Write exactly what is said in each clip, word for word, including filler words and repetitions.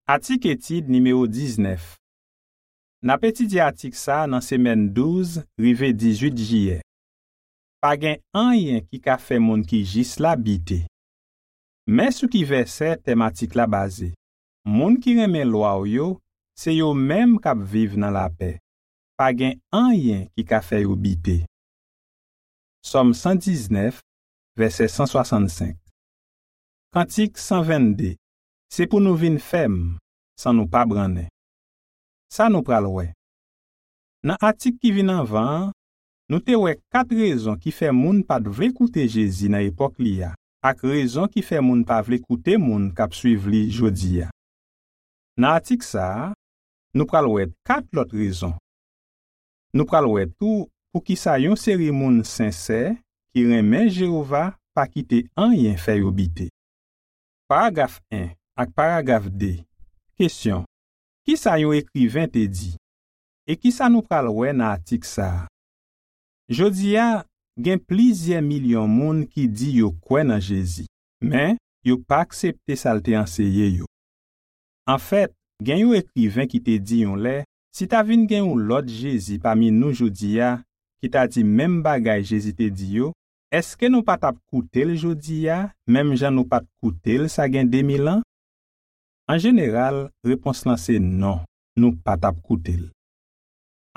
Atik etid nimewo diznèf. N ap etidye atik sa a nan semèn douz rive dizuit jiyè. Pa gen anyen ki ka fè moun ki jis la bite. Men sou ki vèsè tèm atik la baze. Moun ki renmen lwa w yo, se yo menm k ap viv nan lapè. Pa gen anyen ki ka fè yo bite. Sòm san diznèf, vèsè san swasannsenk. Kantik san vennde. Se pou nou vin fèm, san nou pa brannen. Sa nou pral wè. Nan atik ki vin anvan an, nou te wè kat rezon ki fè moun pa t vle koute Jezi nan epòk li a, ak rezon ki fè moun pa vle koute moun k ap suiv li jodi a. Nan atik sa a, nou pral wè kat lòt rezon. Nou pral wè tou poukisa yon seri moun sensè ki renmen Jewova pa kite anyen fè yo bite. Paragraf en ak paragraf de. Kesyon: Ki sa yon ekriven te di? E ki sa nou pral wè nan atik sa a? Jodi a, gen plizyè milyon moun ki di yo kwè nan Jezi, men yo pa aksepte sa l te anseye yo. Anfèt, gen yon ekriven ki te di yon lè, si ta vin gen yon lòt Jezi pami nou jodi a ki ta di menm bagay Jezi te di yo, èske nou pa t ap koute l jodi a, menm jan nou pa t koute l sa gen de mil an? An jeneral, repons lan se non, nou pa t ap koute l.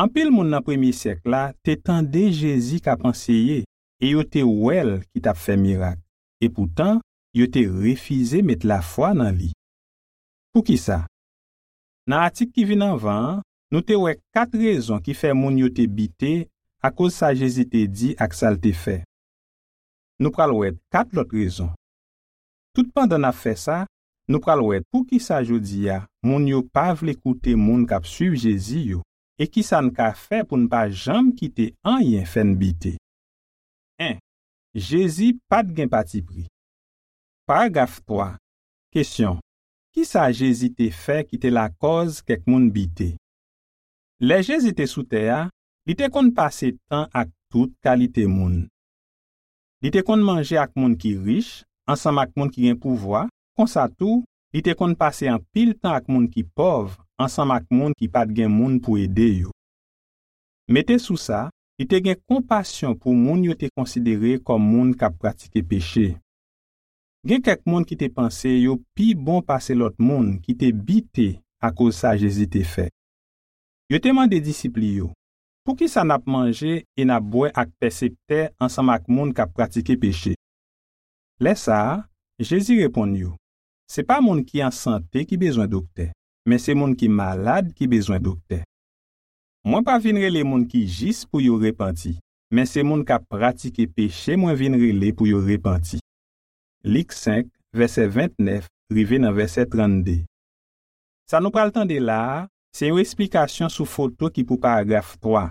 Anpil moun nan premye syèk la te tande Jezi k ap anseye e yo te wè l ki t ap fè mirak. Epoutan, yo te refize met lafwa nan li. Poukisa? Nan atik ki vin anvan an, nou te wè kat rezon ki fè moun yo te bite akoz sa Jezi te di ak sa l te fè. Nou pral wè kat lòt rezon. Toutpandan n ap fè sa, nou pral wè poukisa jodi a moun yo pa vle koute moun k ap suiv Jezi yo, e ki sa n ka fè pou n pa janm kite anyen fè n bite. En. Jezi pa t gen patipri. Paragraf twa. Kesyon: Ki sa Jezi te fè ki te lakòz kèk moun bite? Lè Jezi te sou tè a, li te konn pase tan ak tout kalite moun. Li te konn manje ak moun ki rich, ansanm ak moun ki gen pouvwa, konsa tou, li te konn pase anpil tan ak moun ki pòv, ansanm ak moun ki pa t gen moun pou ede yo. Mete sou sa, li te gen konpasyon pou moun yo te konsidere kòm moun k ap pratike peche. Gen kèk moun ki te panse yo pi bon pase lòt moun ki te bite akoz sa Jezi te fè. Yo te mande disip li yo, "Poukisa n ap manje e n ap bwè ak pèseptè ansanm ak moun k ap pratike peche?" Lè sa a, Jezi reponn yo, "Se pa moun ki an sante ki bezwen doktè, men se moun ki malad ki bezwen doktè. Mwen pa vin rele moun ki jis pou yo repanti, men se moun k ap pratike peche mwen vin rele pou yo repanti." Lik senk, vèsè ventnèf rive nan vèsè trannde. Sa nou pral tande la a, se yon esplikasyon sou foto ki pou paragraf twa.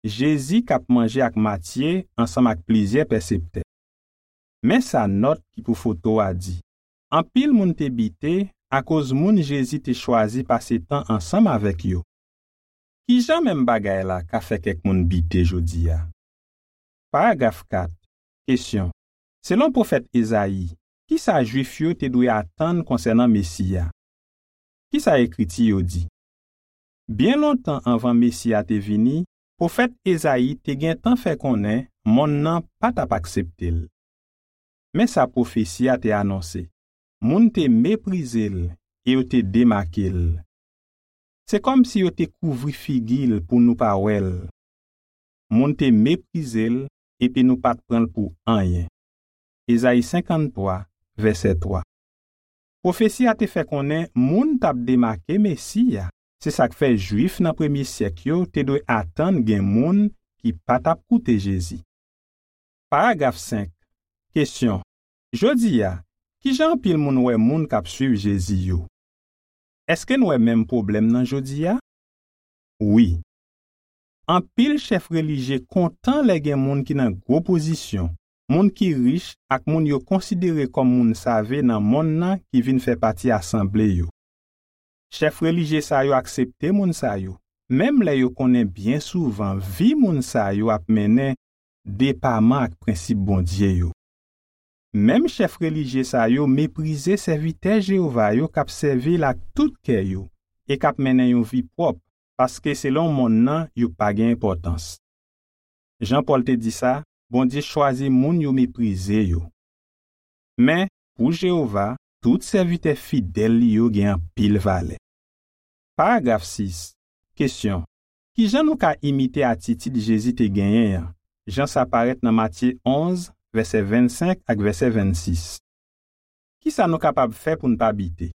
Jezi k ap manje ak Matye ansanm ak plizyè pèseptè. Men sa nòt ki pou foto a di, "Anpil moun te bite akoz moun Jezi te chwazi pase tan ansanm avèk yo." Ki jan menm bagay la ka fè kèk moun bite jodi a? Paragraf kat. Kesyon: Selon pwofèt Ezayi, ki sa Jwif yo te dwe atann konsènan Mesi a? Ki sa Ekriti yo di? Byen lontan anvan Mesi a te vini, pwofèt Ezayi te gentan fè konnen monn nan pa t ap aksepte l. Men sa pwofesi a te anonse, "Moun te meprize l e yo te demake l. Se kòmsi yo te kouvri figi l pou nou pa wè l. Moun te meprize l epi nou pa t pran l pou anyen." Ezayi senkanntwa, vèsè twa. Pwofesi a te fè konnen moun t ap demake Mesi a. Se sa k fè Jwif nan premye syèk yo te dwe atann gen moun ki pa t ap koute Jezi. Paragraf senk. Kesyon: Jodi a, ki jan anpil moun wè moun k ap suiv Jezi yo? Èske n wè menm pwoblèm nan jodi a? Wi. Anpil chèf relijye kontan lè gen moun ki nan gwo pozisyon, moun ki rich ak moun yo konsidere kòm moun save nan monn nan ki vin fè pati asanble yo. Chèf relijye sa yo aksepte moun sa yo, menm lè yo konnen byen souvan vi moun sa yo ap mennen depaman ak prensip Bondye yo. Menm chèf relijye sa yo meprize sèvitè Jewova yo k ap sèvi l ak tout kè yo e k ap mennen yon vi pwòp, paske selon monn nan yo pa gen enpòtans. Jan Pòl te di sa, Bondye chwazi moun yo meprize yo. Men, pou Jewova, tout sèvitè fidèl li yo gen anpil valè. Paragraf sis. Kesyon. Ki jan nou ka imite atitid Jezi te genyen an, jan sa parèt nan Matye onz, vèsè vennsenk ak vèsè vennsis? Ki sa nou kapab fè pou n pa bite?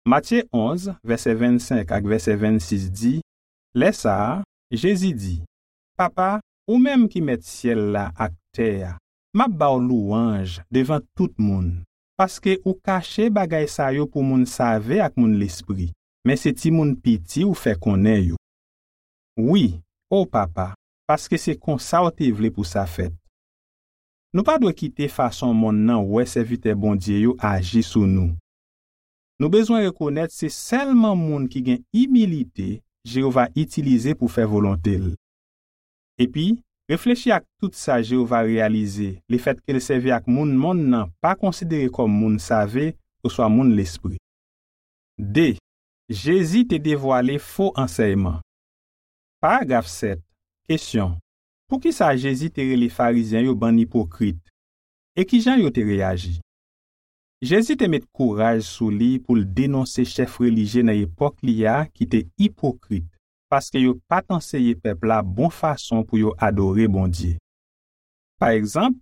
Matye onz, vèsè vennsenk ak vèsè vennsis di, Lè sa a, Jezi di, Papa, ou menm ki mèt syèl la ak tè a, m ap ba w lwanj devan tout moun, paske ou kache bagay sa yo pou moun save ak moun lespri, men se timoun piti ou fè konnen yo. Wi, o Papa, paske se konsa w te vle pou sa fèt. Nou pa dwe kite fason monn nan wè sèvitè Bondye yo aji sou nou. Nou bezwen rekonèt se sèlman moun ki gen imilite Jewova itilize pou fè volonte l. Epi, reflechi ak tout sa Jewova reyalize lefètke l sèvi ak moun monn nan pa konsidere kòm moun save oswa moun lespri. De. Jezi te devwale fo ansèyman. Paragraf sèt. Kesyon. Poukisa Jezi te rele Farizyen yo bann ipokrit? E ki jan yo te reyaji? Jezi te met kouraj sou li pou l denonse chèf relijye nan epòk li a ki te ipokrit, paske yo pa t anseye pèp la bon fason pou yo adore Bondye. Pa egzanp,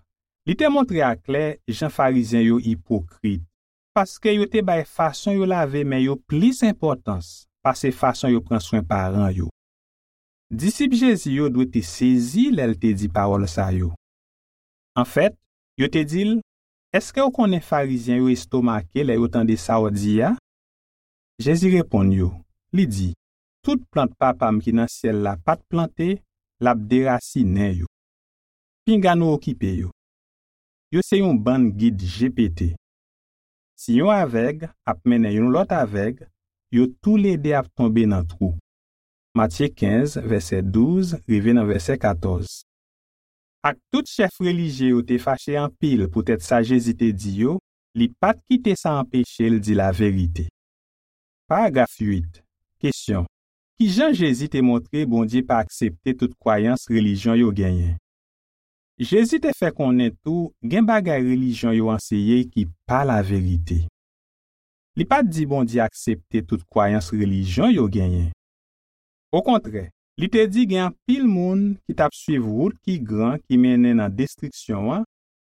li te montre aklè jan Farizyen yo ipokrit, paske yo te bay fason yo lave men yo plis enpòtans pase fason yo pran swen paran yo. Disip Jezi yo dwe te sezi lè l te di pawòl sa yo. Anfèt, yo te di l, Èske w konnen Farizyen yo estomake lè yo tande sa w di a? Jezi reponn yo, li di, Tout plant Papa m ki nan syèl la pa t plante, l ap derasinen yo. Pinga nou okipe yo. Yo se yon bann gid je pete. Si yon avèg ap mennen yon lòt avèg, yo toulede ap tonbe nan twou. Matye kenz, vèsè douz rive nan vèsè katòz. Ak tout chèf relijye yo te fache anpil poutèt sa Jezi te di yo, li pa t kite sa anpeche l di laverite. Paragraf uit. Kesyon. Ki jan Jezi te montre Bondye pa aksepte tout kwayans relijyon yo genyen? Jezi te fè konnen tou gen bagay relijyon yo anseye ki pa laverite. Li pa t di Bondye aksepte tout kwayans relijyon yo genyen. Okontrè, li te di gen anpil moun ki t ap suiv wout ki gran ki mennen nan destriksyon an,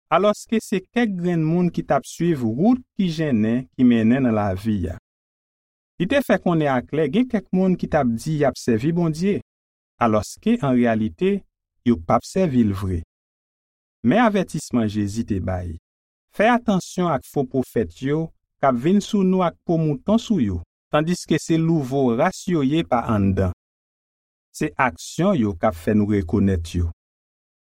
alòske se kèk grenn moun ki t ap suiv wout ki jennen ki mennen nan lavi a. Li te fè konnen aklè gen kèk moun ki t ap di y ap sèvi Bondye, alòske an reyalite, yo p ap sèvi l vre. Men avètisman Jezi te bay, Fè atansyon ak fo pwofèt yo k ap vin sou nou ak po mouton sou yo, tandiske se louvo ras yo ye pa anndan. Se aksyon yo k ap fè nou rekonèt yo.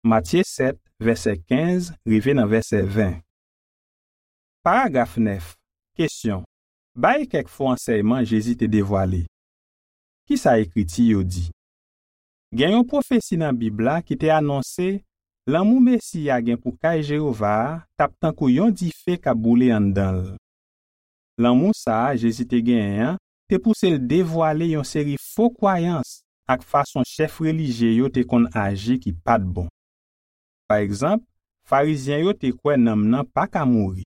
Matye sèt, vèsè kenz rive nan vèsè ven. Paragraf nèf. Kesyon. Bay kèk fo ansèyman Jezi te devwale. Ki sa Ekriti yo di? Gen yon pwofesi nan Bib la ki te anonse lanmou Mesi a gen pou kay Jewova a t ap tankou yon dife k ap boule anndan l. Lanmou sa a Jezi te genyen an te pouse l devwale yon seri fo kwayans ak fason chèf relijye yo te konn aji ki pa t bon. Pa egzanp, Farizyen yo te kwè nanm nan pa ka mouri.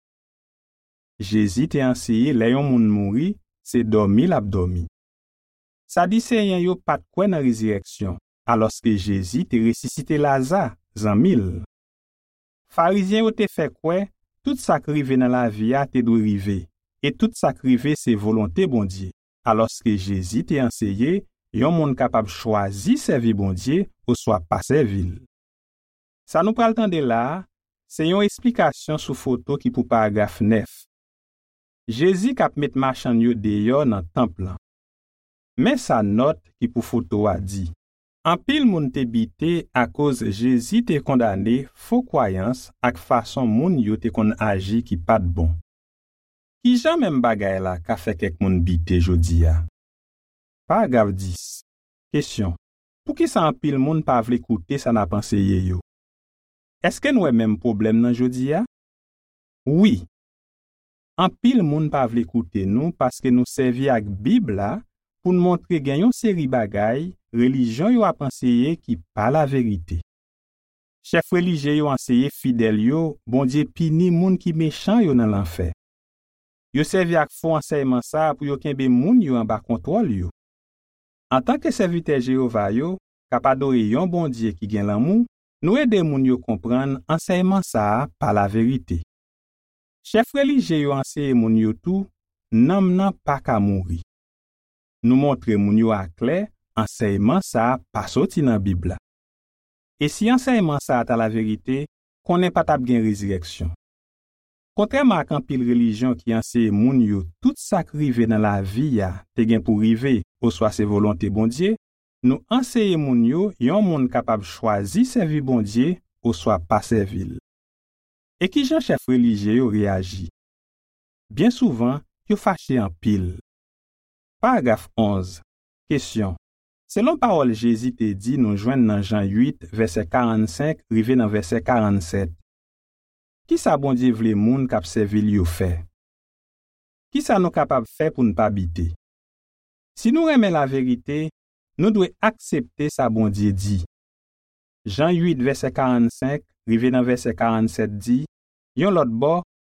Jezi te anseye lè yon moun mouri, se dòmi l ap dòmi. Sadiseyen yo pa t kwè nan rezirèksyon, alòske Jezi te resisite Laza, zanmi l. Farizyen yo te fè kwè tout sa k rive nan lavi a te dwe rive, e tout sa k rive se volonte Bondye, alòske Jezi te anseye yon moun kapab chwazi sèvi Bondye oswa pa sèvi l. Sa nou pral tande la a, se yon esplikasyon sou foto ki pou paragraf nèf. Jezi k ap met machann yo deyò nan tanp lan. Men sa nòt ki pou foto a di. Anpil moun te bite akoz Jezi te kondane fo kwayans ak fason moun yo te konn aji ki pa t bon. Ki jan menm bagay la ka fè kèk moun bite jodi a? Paragraf dis. Kesyon. Poukisa anpil moun pa vle koute sa n ap anseye yo? Èske n wè menm pwoblèm nan jodi a? Wi, anpil moun pa vle koute nou paske nou sèvi ak Bib la pou n montre gen yon seri bagay relijyon yo ap anseye ki pa laverite. Chèf relijye yo anseye fidèl yo Bondye pini moun ki mechan yo nan lanfè. Yo sèvi ak fo ansèyman sa a pou yo kenbe moun yo anba kontwòl yo. Antanke sèvitè Jewova yo, k ap adore yon Bondye ki gen lanmou, nou ede moun yo konprann ansèyman sa a pa laverite. Chèf relijye yo anseye moun yo tou nanm nan pa ka mouri. Nou montre moun yo aklè ansèyman sa a pa soti nan Bib la. E si ansèyman sa a ta laverite, konnen pa t ap gen rezirèksyon. Kontrèman ak anpil relijyon ki anseye moun yo tout sa k rive nan lavi a te gen pou rive oswa se volonte Bondye, nou anseye moun yo yon moun kapab chwazi sèvi Bondye oswa pa sèvi l. E ki jan chèf relijye yo reyaji? Byen souvan, yo fache anpil. Paragraf onz. Kesyon. Selon pawòl Jezi te di nou jwenn nan Jan uit, vèsè karannsenk rive nan vèsè karannsèt, ki sa Bondye vle moun k ap sèvi l yo fè? Ki sa nou kapab fè pou n pa bite? Si nou renmen laverite, nou dwe aksepte sa Bondye di. Jan uit, vèsè karannsenk rive nan vèsè karannsèt di, yon lòt bò,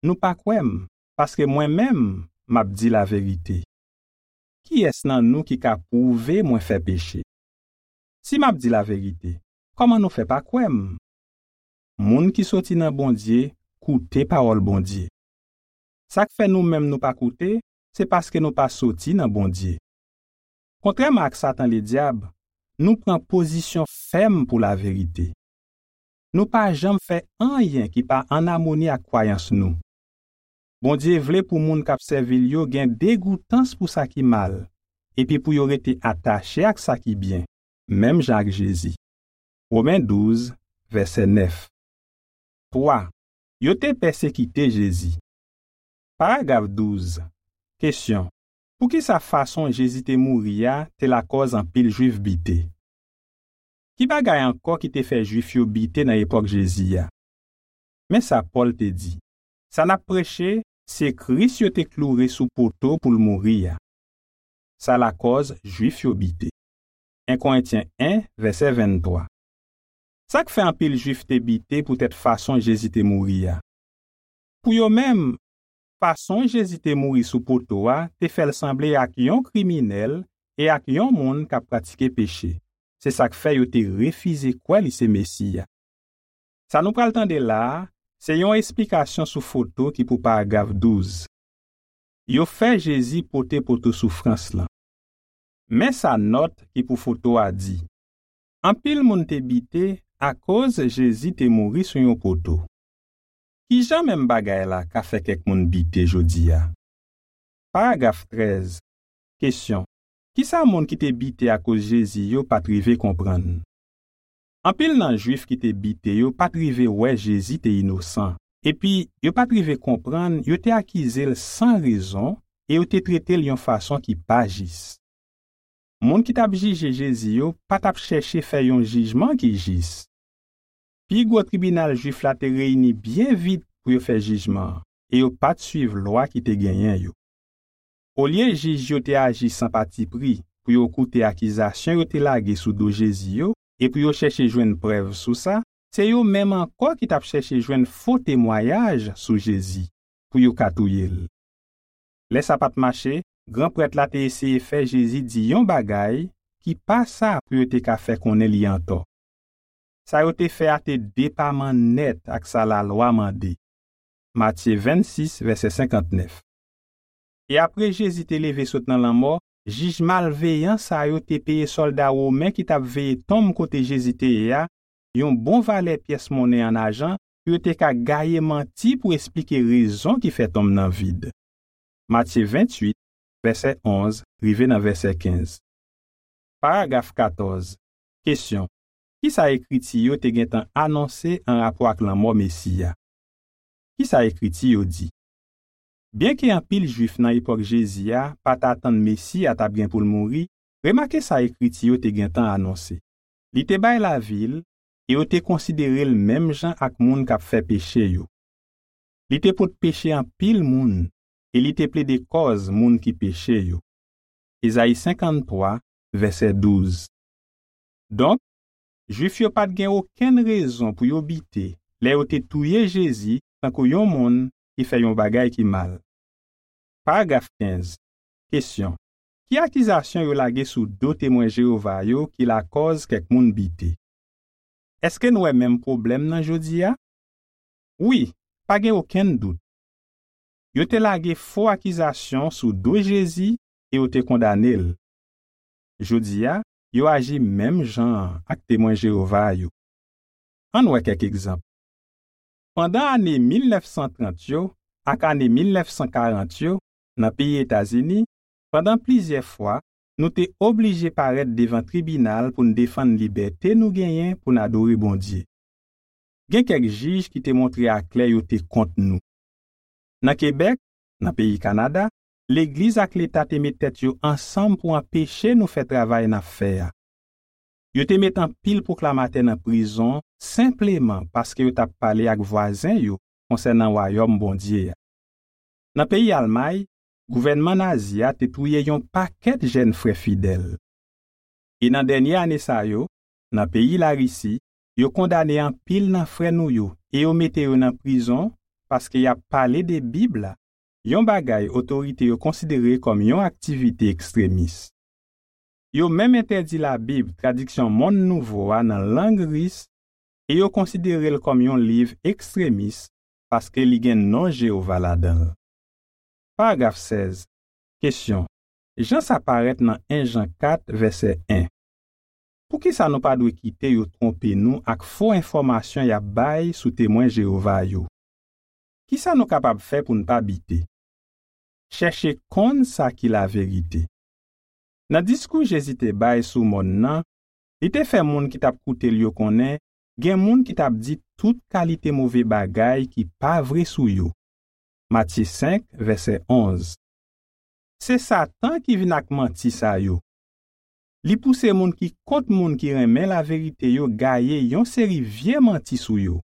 nou pa kwè m, paske mwen menm, m ap di laverite. Kiyès nan nou ki ka pwouve mwen fè peche? Si m ap di laverite, kòman nou fè pa kwè m? Moun ki soti nan Bondye koute pawòl Bondye. Sa k fè nou menm nou pa koute, se paske nou pa soti nan Bondye. Kontrèman ak Satan Ledyab, nou pran pozisyon fèm pou laverite. Nou pa janm fè anyen ki pa ann amoni ak kwayans nou. Bondye vle pou moun k ap sèvi l yo gen degoutans pou sa ki mal, epi pou yo rete atache ak sa ki byen, menm jan ak Jezi. Women douz, vèsè nèf. Twa. Yo te pèsekite Jezi. Paragraf douz. Kesyon. Poukisa fason Jezi te mouri a te lakòz anpil Jwif bite? Ki bagay ankò ki te fè Jwif yo bite nan epòk Jezi a? Men sa Pòl te di, sa n ap preche, se Kris yo te kloure sou poto pou l mouri a. Sa lakòz Jwif yo bite. En Korentyen en, vèsè venntwa. Sa k fè anpil Jwif te bite poutèt fason Jezi te mouri a? Pou yo menm, fason Jezi te mouri sou poto a te fè l sanble ak yon kriminèl e ak yon moun k ap pratike peche. Se sa k fè yo te refize kwè li se Mesi a. Sa nou pral tande la a, se yon esplikasyon sou foto ki pou paragraf douz. Yo fè Jezi pote poto soufrans lan. Men sa nòt ki pou foto a di. Anpil moun te bite akoz Jezi te mouri sou yon poto. Ki jan menm bagay la ka fè kèk moun bite jodi a? Paragraf trèz. Kesyon. Kisa moun ki te bite akoz Jezi yo pa t rive konprann? Anpil nan Jwif ki te bite yo pa t rive wè Jezi te inosan, epi yo pa t rive konprann yo te akize l san rezon e yo te trete l yon fason ki pa jis. Moun ki t ap jije Jezi yo pa t ap chèche fè yon jijman ki jis. Pi gwo tribinal Jwif la te reyini byen vit pou yo fè jijman an, e yo pa t suiv lwa ki te genyen yo. Olye jij yo te aji san patipri pou yo koute akizasyon yo te lage sou do Jezi yo e pou yo chèche jwenn prèv sou sa, se yo menm ankò ki t ap chèche jwenn fo temwayaj sou Jezi pou yo ka touye l. Lè sa pa t mache, gran prèt la te eseye fè Jezi di yon bagay ki pa sa pou yo te ka fè konnen li antò. Sa yo te fè a te depaman nèt ak sa lalwa mande. Matye vennsis, vèsè senkantnèf. E apre Jezi te leve sot nan lanmò, jij malveyan sa yo te peye sòlda women ki t ap veye tonm kote Jezi te ye a yon bon valè pyès monnen ann ajan pou yo te ka gaye manti pou esplike rezon ki fè tonm nan vid. Matye venntuit, vèsè onz rive nan vèsè kenz. Paragraf katòz. Kesyon. Kisa Ekriti yo te gentan anonse anrapò ak lanmò Mesi a? Kisa Ekriti yo di? Byenke anpil Jwif nan epòk Jezi a pa t atann Mesi a t ap gen pou l mouri, remake sa Ekriti yo te gentan anonse. Li te bay lavi l, e yo te konsidere l menm jan ak moun k ap fè peche yo. Li te pot peche anpil moun e li te plede kòz moun ki peche yo. Ezayi senkanntwa, vèsè douz. Donk, Jwif yo pa t gen okenn rezon pou yo bite lè yo te touye Jezi tankou yon moun ki fè yon bagay ki mal. Paragraf kenz. Kesyon: Ki akizasyon yo lage sou do Temwen Jewova yo ki lakòz kèk moun bite? Èske n wè menm pwoblèm nan jodi a? Wi, pa gen okenn dout. Yo te lage fo akizasyon sou do Jezi e yo te kondane l. Jodi a, yo aji menm jan an ak Temwen Jewova yo. Ann wè kèk egzanp. Pandan ane mil nèf san trant yo ak ane mil nèf san karant yo, nan peyi Etazini, pandan plizyè fwa, nou te oblije parèt devan tribinal pou n defann libète nou genyen pou n adore Bondye. Gen kèk jij ki te montre aklè yo te kont nou. Nan Kebèk, nan peyi Kanada, legliz ak Leta te met tèt yo ansanm pou anpeche nou fè travay n ap fè a. Yo te met anpil pwoklamatè nan prizon senpleman paske yo t ap pale ak vwazen yo konsènan Wayòm Bondye a. Nan peyi Almay, gouvènman nazi a te touye yon pakèt jèn frè fidèl. E nan dènye ane sa yo, nan peyi Larisi, yo kondane anpil nan frè nou yo e yo mete yo nan prizon paske y ap pale de Bib la, yon bagay otorite yo konsidere kòm yon aktivite ekstremis. Yo menm entèdi Labib tradiksyon monn nouvo a nan lang ris e yo konsidere l kòm yon liv ekstremis paske li gen non Jewova ladan l. Paragraf sèz. Kesyon: Jan sa parèt nan en Jan kat, vèsè en. Poukisa nou pa dwe kite yo twonpe nou ak fo enfòmasyon y ap bay sou Temwen Jewova yo? Ki sa nou kapab fè pou n pa bite? Chèche konn sa ki laverite. Nan diskou Jezi te bay sou mòn nan, li te fè moun ki t ap koute l yo konnen gen moun ki t ap di tout kalite move bagay ki pa vre sou yo. Matye senk, vèsè onz. Se Satan ki vin ak manti sa yo. Li pouse moun ki kont moun ki renmen laverite yo gaye yon seri vye manti sou yo.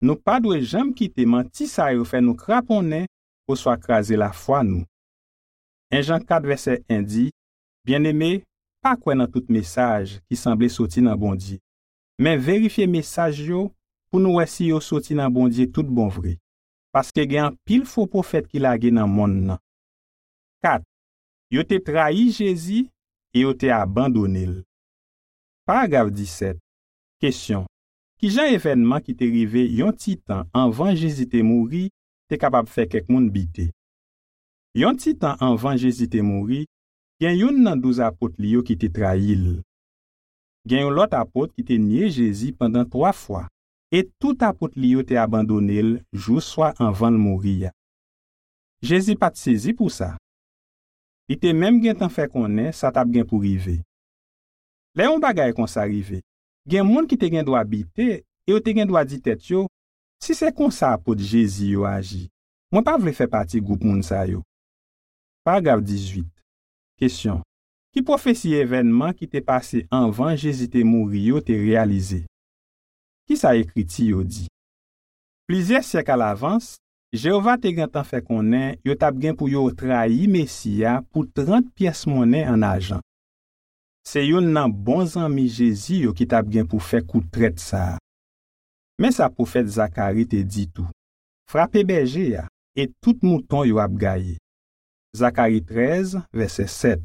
Nou pa dwe janm kite manti sa yo fè nou kraponnen oswa kraze lafwa nou. En Jan kat vèsè en di: Byeneme, pa kwè nan tout mesaj ki sanble soti nan Bondye, men verifye mesaj yo pou nou wè si yo soti nan Bondye tout bon vre, paske gen anpil fo pwofèt ki lage nan monn nan. Kat. Yo te trayi Jezi e yo te abandone l. Paragraf disèt. Kesyon: Ki jan evènman ki te rive yon ti tan anvan Jezi te mouri te kapab fè kèk moun bite? Yon ti tan anvan Jezi te mouri, gen youn nan douz apot li yo ki te trayi l. Gen yon lòt apot ki te nye Jezi pandan twa fwa, e tout apot li yo te abandone l jou swa anvan l mouri a. Jezi pa t sezi pou sa. Li te menm gentan fè konnen sa t ap gen pou rive. Lè yon bagay konsa rive, gen moun ki te gen dwa bite e yo te gen dwa di tèt yo: "Si se konsa apot Jezi yo aji, mwen pa vle fè pati gwoup moun sa yo." Paragraf dizuit. Kesyon: Ki pwofesi evènman ki te pase anvan Jezi te mouri yo te reyalize? Ki sa Ekriti yo di? Plizyè syèk alavans, Jewova te gentan fè konnen yo t ap gen pou yo trayi Mesi a pou trant pyès monnen ann ajan. Se youn nan bon zanmi Jezi yo ki t ap gen pou fè kou trèt sa a. Men sa pwofèt Zakari te di tou: "Frape bèje a, e tout mouton yo ap gaye." Zakari trèz, vèsè sèt.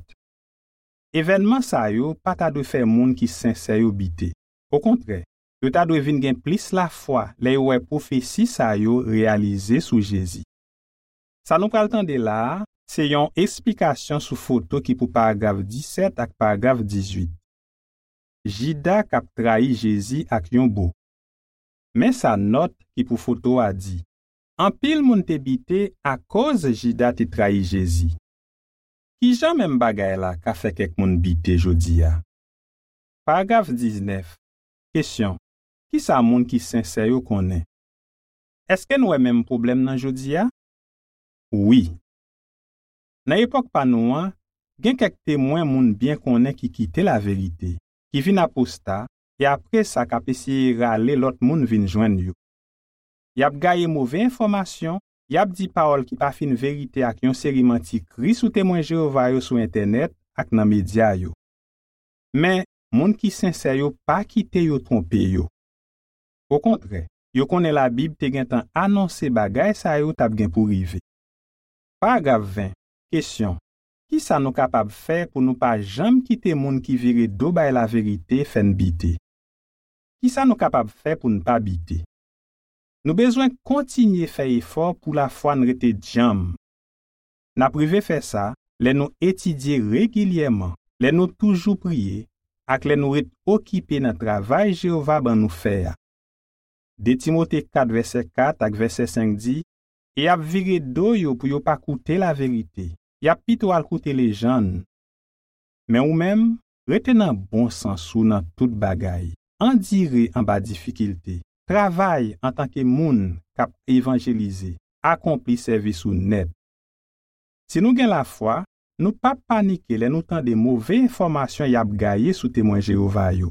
Evènman sa yo pa ta dwe fè moun ki sensè yo bite. Okontrè, yo ta dwe vin gen plis lafwa lè yo wè pwofesi sa yo reyalize sou Jezi. Sa nou pral tande la a, se yon esplikasyon sou foto ki pou paragraf disèt ak paragraf dizuit. Jida k ap trayi Jezi ak yon bo. Men sa nòt ki pou foto a di: "Anpil moun te bite akoz Jida te trayi Jezi." Ki jan menm bagay la ka fè kèk moun bite jodi a? Paragraf diznèf. Kesyon: Ki sa moun ki sensè yo konnen? Èske n wè menm pwoblèm nan jodi a? Wi. Nan epòk pa nou an, gen kèk temwen moun byen konnen ki kite laverite, ki vin aposta, e apre sa k ap eseye rale lòt moun vin jwenn yo. Y ap gaye move enfòmasyon, y ap di pawòl ki pa fin verite ak yon seri manti Kris ou Temwen Jewova yo sou entènèt ak nan medya yo. Men, moun ki sensè yo pa kite yo twonpe yo. Okontrè, yo konnen Labib te gentan anonse bagay sa yo t ap gen pou rive. Paragraf ven, kesyon: Ki sa nou kapab fè pou nou pa janm kite moun ki vire do bay laverite fè n bite? Ki sa nou kapab fè pou n pa bite? Nou bezwen kontinye fè efò pou lafwa n rete djanm. N ap rive fè sa lè nou etidye regilyèman, lè nou toujou priye, ak lè nou ret okipe nan travay Jewova ban nou fè a. De Timote kat vèsè kat ak vèsè senk di, "E y ap vire do yo pou yo pa koute laverite, y ap pito al koute lejann." Men ou menm, rete nan bon sans ou nan tout bagay. Andire anba difikilte. Travay antanke moun k ap evanjelize. Akonpli sèvis ou nèt. Si nou gen lafwa, nou p ap panike lè nou tande move enfòmasyon y ap gaye sou Temwen Jewova yo.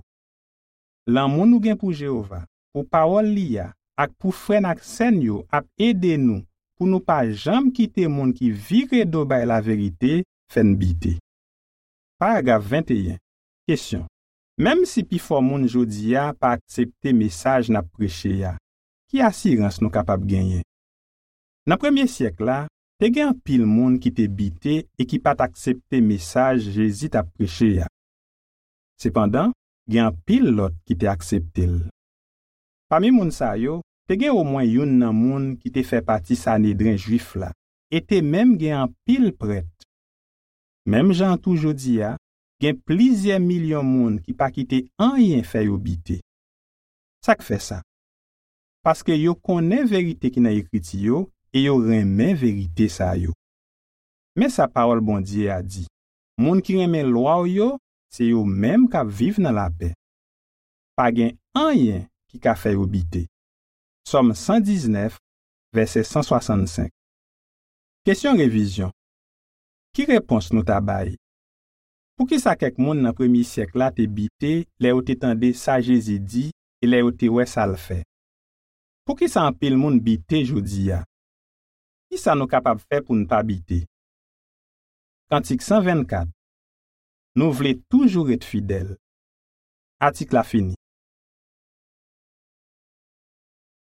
Lanmou nou gen pou Jewova, pou pawòl li a, ak pou frè n ak sè n yo ap ede nou pou nou pa janm kite moun ki vire do bay laverite fè n bite. Paragraf venteyen, kesyon: Menm si pifò moun jodi a pa aksepte mesaj n ap preche a, ki asirans nou kapab genyen? Nan premye syèk la, te gen anpil moun ki te bite e ki pa t aksepte mesaj Jezi t ap preche a. Sepandan, gen anpil lòt ki te aksepte l. Pami moun sa yo, te gen omwen youn nan moun ki te fè pati Sanedren jwif la, e te menm gen anpil prèt. Menm jan an tou jodi a, gen plizyè milyon moun ki pa kite anyen fè yo bite. Sa k fè sa? Paske yo konnen verite ki nan Ekriti yo e yo renmen verite sa yo. Men sa pawòl Bondye a di: "Moun ki renmen lwa w yo, se yo menm k ap viv nan lapè." Pa gen anyen ki ka fè yo bite. Sòm san diznèf, vèsè san swasannsenk. Kesyon revizyon. Ki repons nou ta bay? Poukisa kèk moun nan premye syèk la te bite lè yo te tande sa Jezi di e lè yo te wè sa l fè? Poukisa anpil moun bite jodi a? Ki sa nou kapab fè pou n pa bite? Kantik san vennkat. Nou vle toujou ret fidèl. Atik la fini.